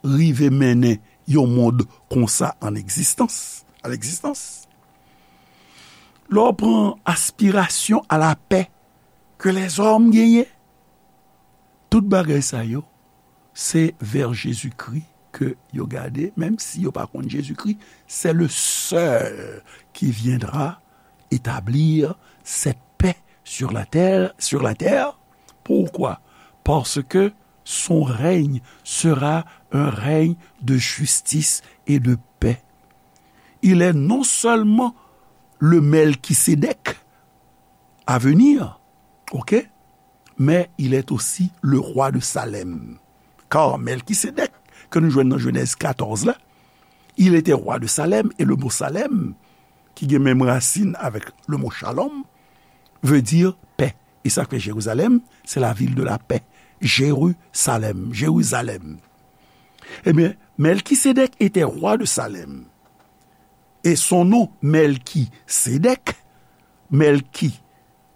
rive mennen yon mond konsa an egzistans, a legzistans. Lè w pran aspirasyon a lapè ke lèzòm genyen, tout bagay sa yo, se vè Jezikri ke yo gade, menm si yo pa konn Jezikri, c'est le seul qui viendra établir cette paix sur la terre, sur la terre. Pourquoi? Parce que son règne sera un règne de justice et de paix. Il est non seulement le Melchisédek à venir, ok, mais il est aussi le roi de Salem. Car Melchisédek, ke nou jwenn nan Jenèz katòz la, il était roi de Salem, et le mot Salem, ki gen menm rasin avèk le mot shalom, veut dire paix. E sa k fè Jérusalem, c'est la ville de la paix. Jérusalem, Jérusalem. Ebyen, Melchisédek était roi de Salem. Et son nom, Melchisédek, Melchi,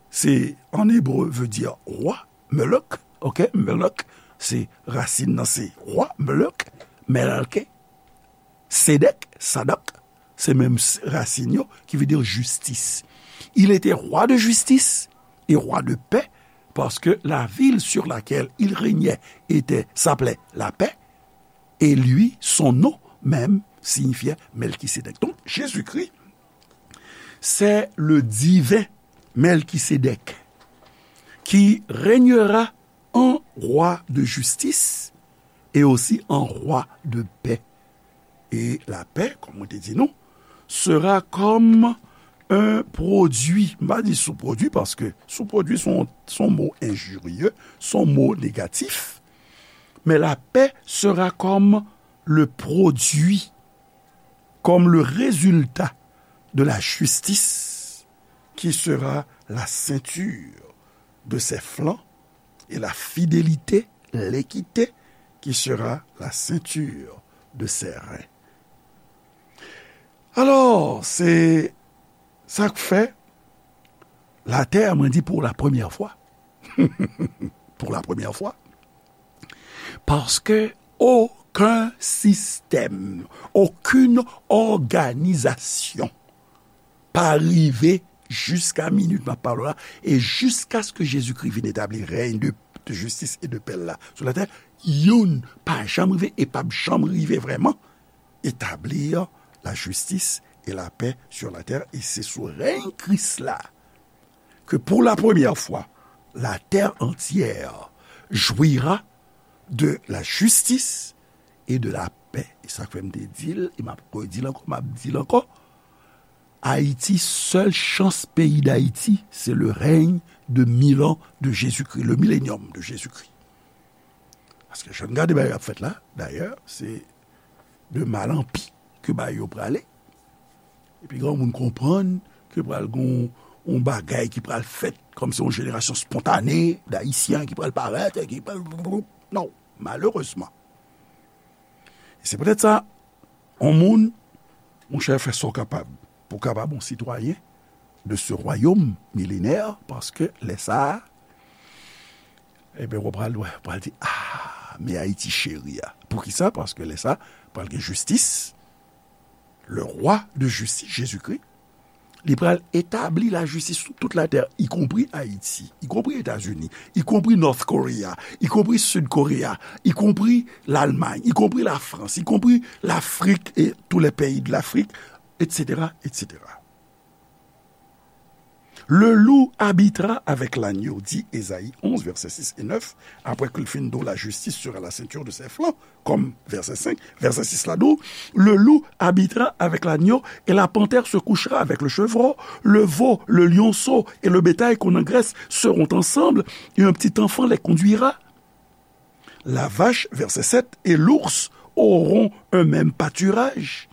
c'est en hébreu, veut dire roi, Melek, ok, Melek, se rasin nan se roi, Melek, Melke, Sedek, Sadak, se menm s-, rasin yo, qui veut dire justice. Il était roi de justice et roi de paix, parce que la ville sur laquelle il régnait était, s'appelait la paix, et lui, son nom même, signifiait Melchisédek. Donc, Jésus-Christ, c'est le divin Melchisédek qui régnera en roi de justice et aussi en roi de paix. Et la paix, comme on te dit, non, sera comme un produit, m pa di sou pwodui, paske sou pwodui se yon, se yon mo enjirye, se yon mo negatif, mais la paix sera comme le produit, comme le résultat de la justice qui sera la ceinture de ses flancs, et la fidélité, l'équité, qui sera la ceinture de ses reins. Alò, se sa k fè latè, mwen di, pour la première fois. Pour la première fois. Paske okenn sistèm, okenn òganizasyon pa rive jiska minit m ap pale w la, e jiskaske Jezikri vin etabli rèy de, de jistis e de pè l la sou latè, youn pa janm rive e p ap janm rive vrèman etablir la justice et la paix sur la terre, e se sou rèy Kris la que pour la première fois, la terre entière jouira de la justice et de la paix. E sa k fè m te di l, e m ap redi l ankò, m ap di l ankò, Ayiti, sèl chans peyi Dayiti, se le règne de mille ans de Jésus-Christ, le millénium de Jésus-Christ. Paske jan n gade bagay ap fèt la, dayè, se de mal an pi ke bagay yo prale. Epi granmoun konprann ke pral gon yon bagay ki pral fèt, kòmsi yon jenerasyon spontane d'Ayisyen ki pral parèt, ki pral, non, malerezman. E se poutèt sa, yon moun, monchè, fè sa w kapab pou w kapab yon sitwayen de ce royaume millénaire, paske lè sa a, ebyen, w pral wè, w pral di, ah, men Ayiti cheri a. Poukisa? Paske lè sa a, pral gen jistis, le roi de justice, Jésus-Christ, li pral etabli lajistis sou tout latè, ikonpri Ayiti, ikonpri Etazini, ikonpri North Korea, ikonpri Sid Korea, ikonpri Lalmay, ikonpri Lafrans, ikonpri Lafrik et tous les pays de l'Afrique, et cetera, et cetera. Le loup habitera avec l'agneau, dit Ésaïe onze, versets six et neuf, après qu'il fin dit, la justice sera la ceinture de ses flancs, comme verset cinq, verset six la dit, le loup habitera avec l'agneau et la panthère se couchera avec le chevreau, le veau, le lionceau et le bétail qu'on engraisse seront ensemble et un petit enfant les conduira. La vache, verset sept, et l'ours auront un même pâturage,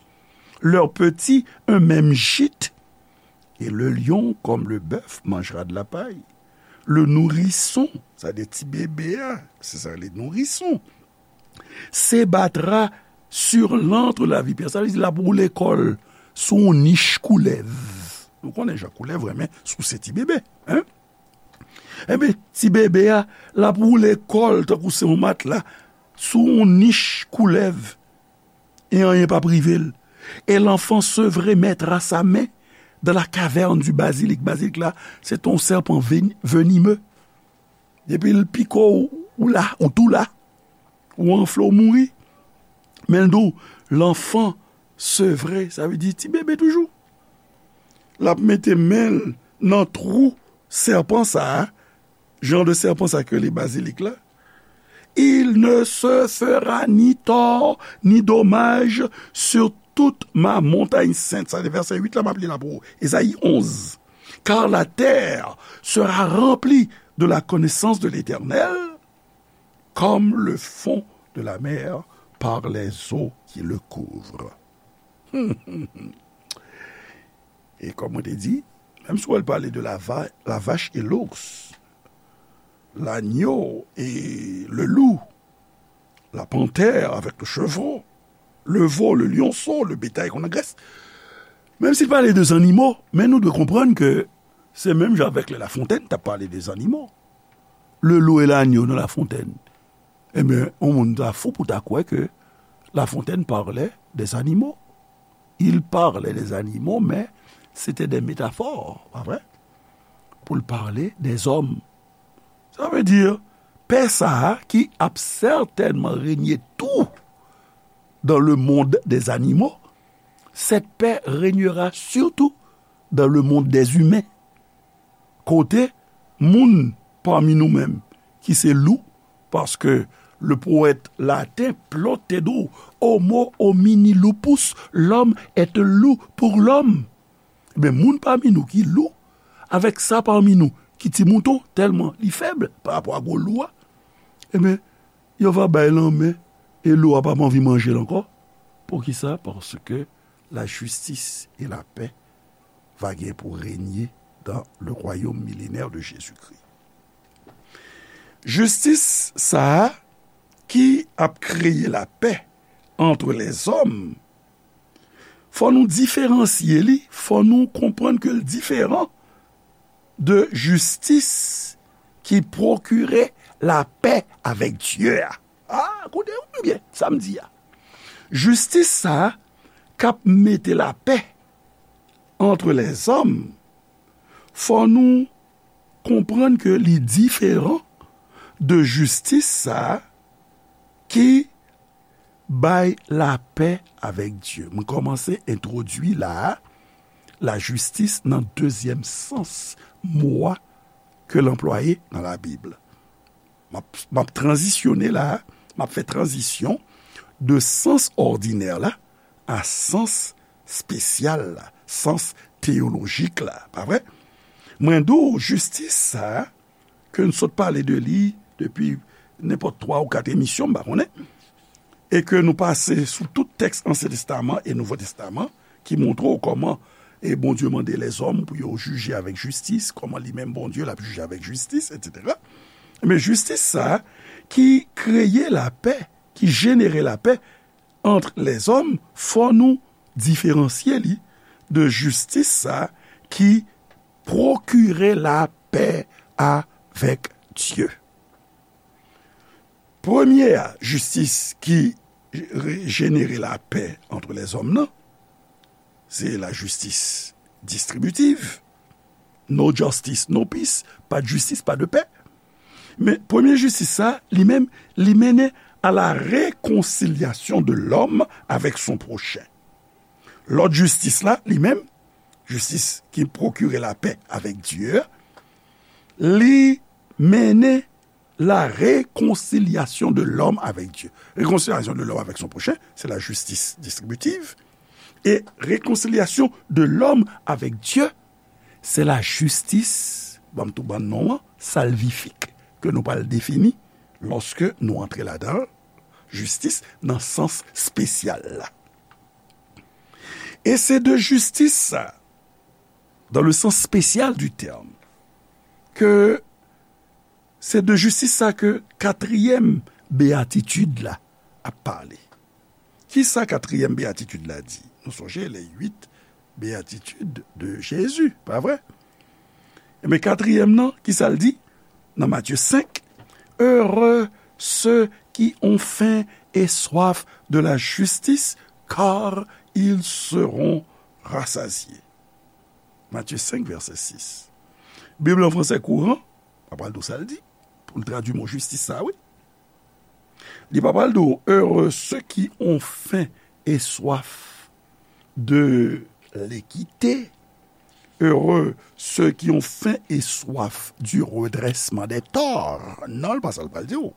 leurs petits un même gîte, et le lion, comme le bœuf, mangera de la paille. Le nourrisson, sa de ti bebe a, se sa le nourrisson, se battra sur l'antre de la vipère. Sa vle di l ap woule kò l sou yon nich koulèv. Nou konnen jan koulèv renmen souse ti bebe, hein? Enben, ti bebe a, l ap woule kò l tankou se yon matla sou yon nich koulèv, e anyen p ap rive l. Et l'enfant sevré mettra sa main dans la caverne du basilic. Bazilik la, se yon sèpan veni- venimeux. Depi l pike w, ou la, ou tou la. Ou anfle, ou mouri. Men l di w, l'enfant sevré, sa vle di ti bebe toujou. L ap mete men l nan twou sèpan sa a, jan de sèpan sa ke li bazilik la. Il ne se fera ni tort ni dommage sur toute ma montagne sainte. Sa se vèsè uit la, m ap li la pou ou. Ezayi onz. Car la terre sera remplie de la connaissance de l'Éternel, comme le fond de la mer par les eaux qui le couvrent. E kòm mwen te di, menm si w al pale de la, va, la vache et l'ours, l'agneau et le loup, la panthère avec le chevreau, le veau, le lionceau, le bétail qu'on engraisse, menm si l pale de zannimo, men nou dwe konprann ke se menm jan avèk lè Lafontèn t ap pale de zannimo. Le loup et l'agneau nan Lafontèn. Ebyen, yon moun ta fou pou ta kwè ke Lafontèn parlait des animaux. Il parlait des animaux, mais c'était des métaphores, pa vre? Pou l pale des hommes. Sa vle di, pè sa a ki ap sètènman renye tou dans le monde des animaux, cette paix régnera surtout dans le monde des humains. Kote moun pami nou menm ki se lou, paske le powèt laten Plot te di w, homo homini lupus, l'homme est un loup pour l'homme. Ebyen, moun pami nou ki lou, avèk sa pami nou ki ti mouton, tèlman li fèb pa rapò a gwo lou a, ebyen, yo va bay lanmen e lou a p ap anvi manje l ankò. Poukisa? Paske la justice et la paix va gen pou renye dans le royaume millénaire de Jésus-Christ. Jistis sa a ki ap kreye lapè entre les hommes, fò nou diferansye li, fò nou konprann ke l diferan de jistis ki pwokire lapè avèk Dye a. A, koute w byen sa m di a. Jistis sa a k ap mete lapè entre les hommes, fò nou konprann ke li diferan de jistis sa a ki bay lapè avèk Dye. Mwen kòmanse entwodui la a, lajistis nan dezyèm sans mo a ke l anplwaye nan Labib. M ap, m ap tranzisyone la a, m ap fè tranzisyon de sans òdinè la a sans espesyal la, sans teyolojik la, pa vre? Mwen di w, jistis sa a, ke n sot pale de li depi nenpòt twa ou kat emisyon, m pa konnen, e ke nou pase sou tout tèks Ansyen Testaman e Nouvo Testaman, ki montre w kòman, e, Bondye mande lèzòm pou yo jije avèk jistis, kòman li menm Bondye l ap jije avèk jistis, etsetera. Men jistis sa a ki kreye lapè, ki jenere lapè entre les hommes, fò nou diferansye li de jistis sa a ki pwokire lapè avèk Dye. Premye a, jistis ki re-, jenere lapè entre les hommes nan, se lajistis distribitiv. No justice, no peace. Pa de jistis, pa de pè. Men premye jistis sa, li menm, li mennen à la réconciliation de l'homme avec son prochain. Lòt jistis la, li menm, jistis ki pwokire lapè avèk Dye a, li mennen la réconciliation de l'homme avec Dieu. Réconciliation de l'homme avec son prochain, c'est la justice distributive. Et réconciliation de l'homme avec Dieu, c'est la justice, ban m tou ban non an, salvifique, ke nou pral defini lòske nou antre ladan l, jistis nan sans espesyal la. E se de jistis sa, dans le sens spécial du terme, ke se de jistis sa ke katriyèm beyatitid la ap pale. Kisa katriyèm beyatitid la di? Nou sonje les huit béatitudes de Jésus, pa vre? Ebyen, katriyèm nan, kisa l di? nan Matye senk, Heureux ceux qui ont faim et soif de la justice, car ils seront rassasiés. Matye senk, vèsè sis. Bib lan fransè kouran, pa pral di w sa l di, pou l tradui mo jistis sa, wi. Li pa pral di w, Heureux ceux qui ont faim et soif de l'équité, heureux ceux qui ont faim et soif du redressement des torts. Non, l pa sa l pral di w.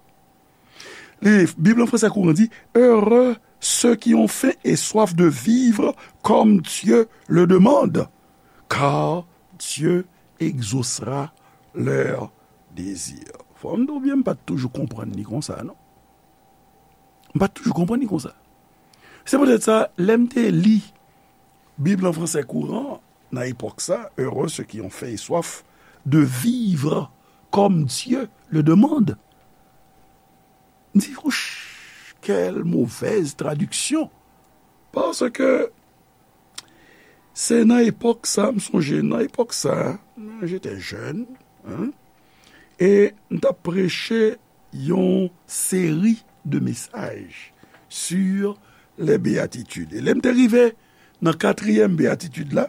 Li, Bib lan fransè kouran di, Heureux ceux qui ont faim et soif de vivre comme Dieu le demande, car Dieu exaucera leur désir. Fò m di w byen, m pa t toujou konprann li konsa, non. M pa t toujou konprann li konsa. Se poutèt sa, lè m te li Bib lan fransè kouran, nan epòk sa, Heureux ceux qui ont faim et soif de vivre comme Dieu le demande. M di, Ouch, quelle mauvaise traduction! Paske se nan epòk sa, m sonje, nan epòk sa, j'étais jeune, hein, e m t ap preche yon seri de mesaj sur les béatitudes. E lè m te rive nan katriyèm beyatitid la,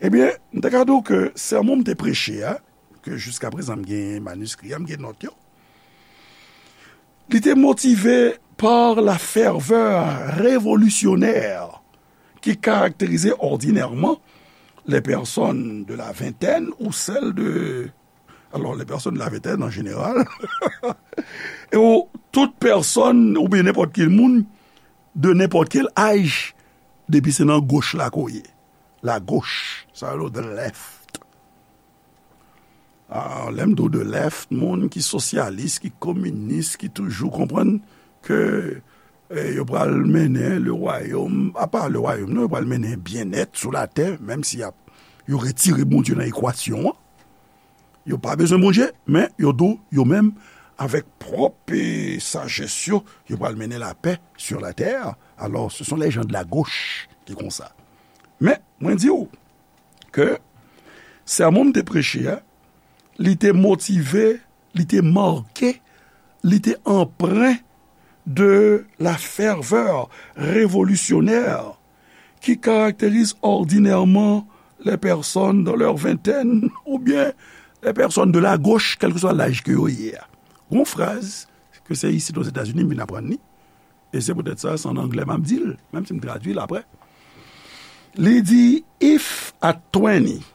ebyen, m ta ka di w ke sèmon m te preche a, ke jiska prezan m gen maniskri a, m gen nòt yo, li te motive par la ferveur révolutionnaire qui caractérisait ordinairement les personnes de la vingtaine ou celles de, alors, les personnes de la vingtaine en général, e ou, tout pèsòn, oubyen nenpòt ki moun, de nenpòt kèl aj, depi se nan goch la ke w ye. La gauche, sa yo rele the left. Ah, lè m di w the left, moun ki sosyalis, ki kominis, ki toujou konprann ke, eh, yo pral mennen le royaume, apa le royaume, non, yo pral mennen byennèt sou latè, menm si y ap, yo retire Bondye nan ekwasyon an. Yo pa bezwen Bondye, men yo di w, yo menm, avèk pwòp, eh, sajès yo, yo pral mennen lapè sur la terre. Alors, ce sont les gens de la gauche ki konsa. Men, mwen di w ke sèmon m te preche a, li te motive, li te make, li te anpren de la ferveur révolutionnaire qui caractérise ordinairement les personnes dans leur vingtaine ou bien les personnes de la gauche, kèlkeswa laj ke yo ye a. Gon fraz ke se isit Ozetazini m vin aprann li, e se poutèt sa, se an anglè m ap di l, menm si m tradui l apre. Li di, If at twenty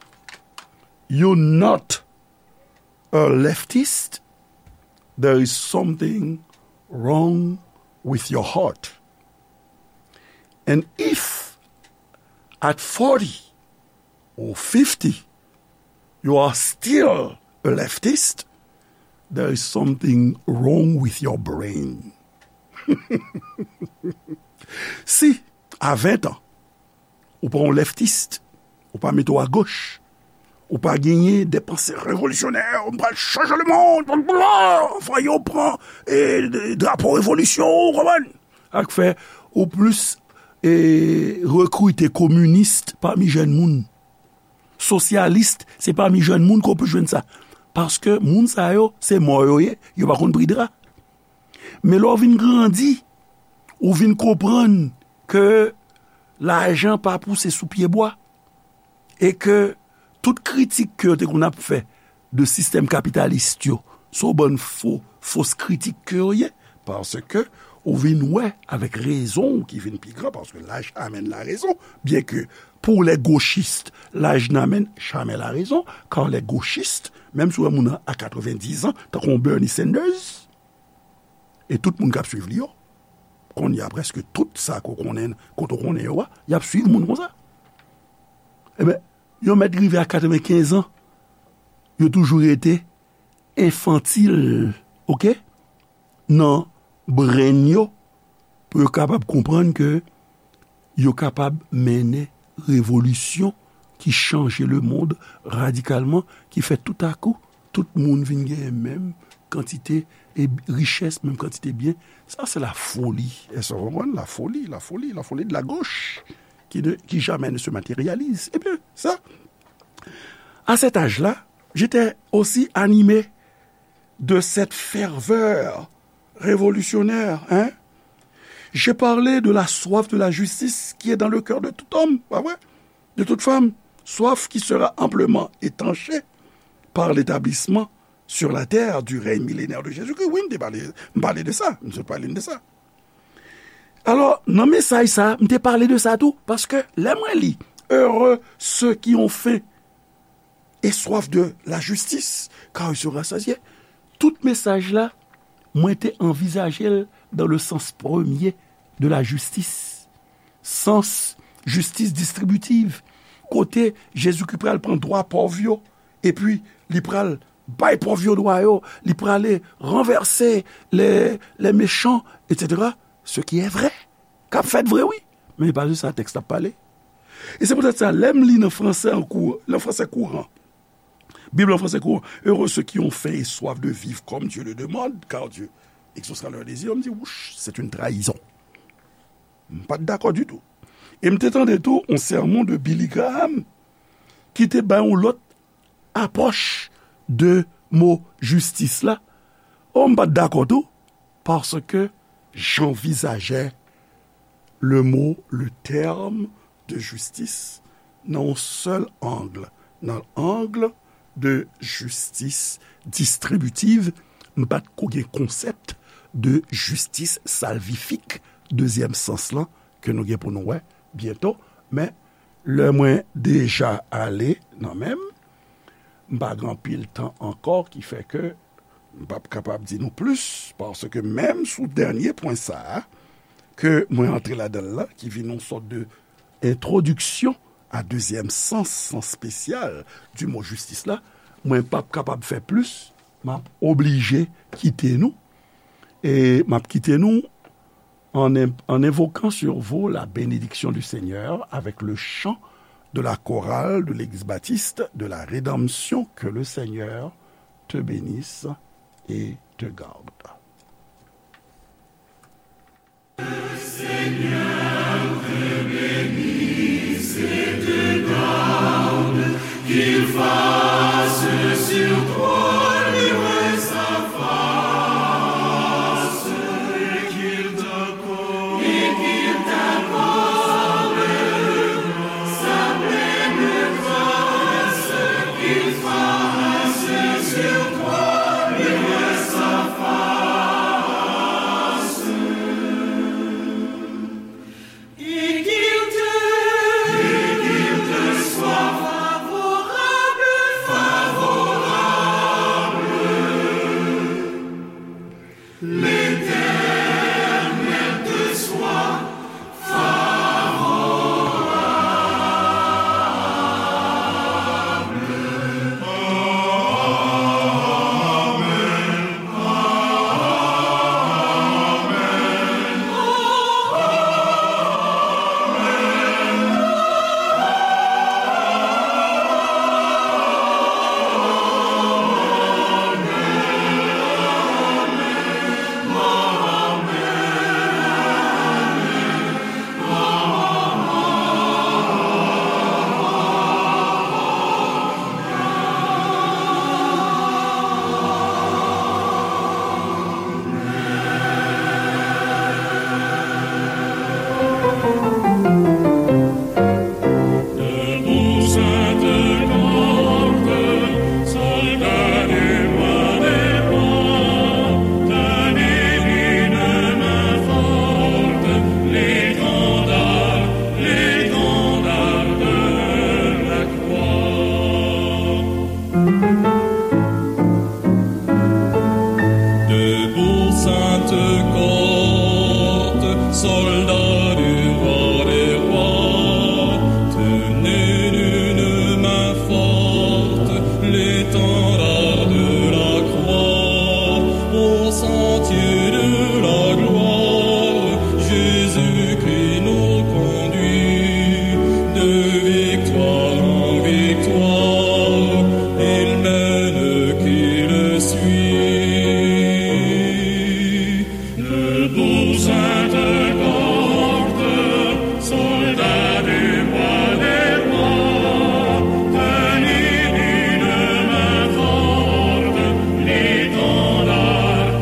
you're not a leftist, there is something wrong with your heart. And if at forty or fifty you are still a leftist, there is something wrong with your brain. Si, a ven an, ou pa yon leftist, ou pa mete w agoch, ou pa genyen de panse revolisyonè, ou pral chanje lemonn, fò yo pran, eh, drapo revolisyon, ou konprann? Sa k fè ou plis, eh, rekrite kominis pami jèn moun. Sosyalis, se pami jèn moun ke w plis jwenn sa. Paske moun sa yo, se mò yo ye, yo pa konn pri dra. Men lè w vin grandi, ou vin konprann ke lajan pa pouse sou pye bwa, e ke tout kritik ke yo te konn ap fè de sistèm kapitalis yo, se yon bann fo, fos kritik ke yo ye, paske ou vin wè avèk rezon w ki vin pi gran, paske laj amèn larezon, byen ke pour les gauchistes, l'âge n'amène jamais la raison, car les gauchistes, menm si w wè moun nan a katrevendiz an, tankou yon Bernie Sanders, e tout moun k ap swiv li yo, kounye a prèske tout sa ke w konnen, kote w konnen yo a, y ap swiv moun konsa. Ebyen, yo mèt rive a katrevenkenz an, yo toujou rete enfantil, oke? Nan brain yo, pou yo kapab konprann ke yo kapab mennen revolisyon ki chanje lemonn radikalman, ki fè toutakou, tout moun vin genyen menm kantite e richès, menm kantite byen. Sa, se la foli. Èske w konprann? La foli, la foli, la foli de la gauche, qui ne, qui jamais ne se matérialise. Ebyen, sa, à cet âge-là, j'étais aussi animé de cette ferveur révolutionnaire, hein? J'ai parlé de la soif de la justice qui est dans le cœur de tout homme, pa vre? De toute femme, soif qui sera amplement étanchée par l'établissement sur la terre du règne millénaire de Jésus-Christ. Wi, m te pale, m pale de sa, m sot pale de sa. Alò, nan mesaj sa, m te pale de sa tou, paske lè mwen li, heureux ceux qui ont faim et soif de la justice, car ils seront rassasiés. Tout mesaj la, mwen te anvizaje l dans le sens premier de la justice. Sans jistis distribitiv, kote Jezikri pral pran dwa pòv yo, epi li pral bay pòv yo dwa yo, li prale ranvèse les, les méchants, et cetera. Ce qui est vrai. K ap fèt vre, wi. Men e pa de sa tèks la ap pale. E se poutèt sa, lè m li nan fransè an kou, nan fransè kouran, Bib an fransè kouran, heureux ceux qui ont faim et soif de vivre comme Dieu le demande, car Dieu exaucera leur désir, m di, wouch, c'est une trahison. M pa t dakò ditou. E m te tande tou yon sèmon de Billy Graham ki te bay yon lòt apwòch de mo jistis la. O, m pa t dakò tou, paske j'envisageais le mot, le terme de justice nan yon sèl ang, nan ang de jistis distribitiv. M pa t ko gen konsèp de jistis salvifik, dezyèm sans lan, ke nou gen pou nou wè byento. Men, lè mwen deja ale nan men m, m pa gen anpil tan ankò, ki fè ke m p ap kapab di nou plis, paske menm sou dènye pwen sa a, ke mwen antre ladan l la, ki vin yon sòt de entwodiksyon a dezyèm sans, sans spesyal du mot justice la, mwen p ap kapab fè plis, m ap oblije kite nou. E m ap kite nou en, en invoquant sur vous la bénédiction du Seigneur avec le chant de la chorale de l'église baptiste de la Rédemption. Que le Seigneur te bénisse et te garde. Debout, sainte cohorte, soldats du roi des rois, tenez d'une main forte l'étendard de la croix, au sentier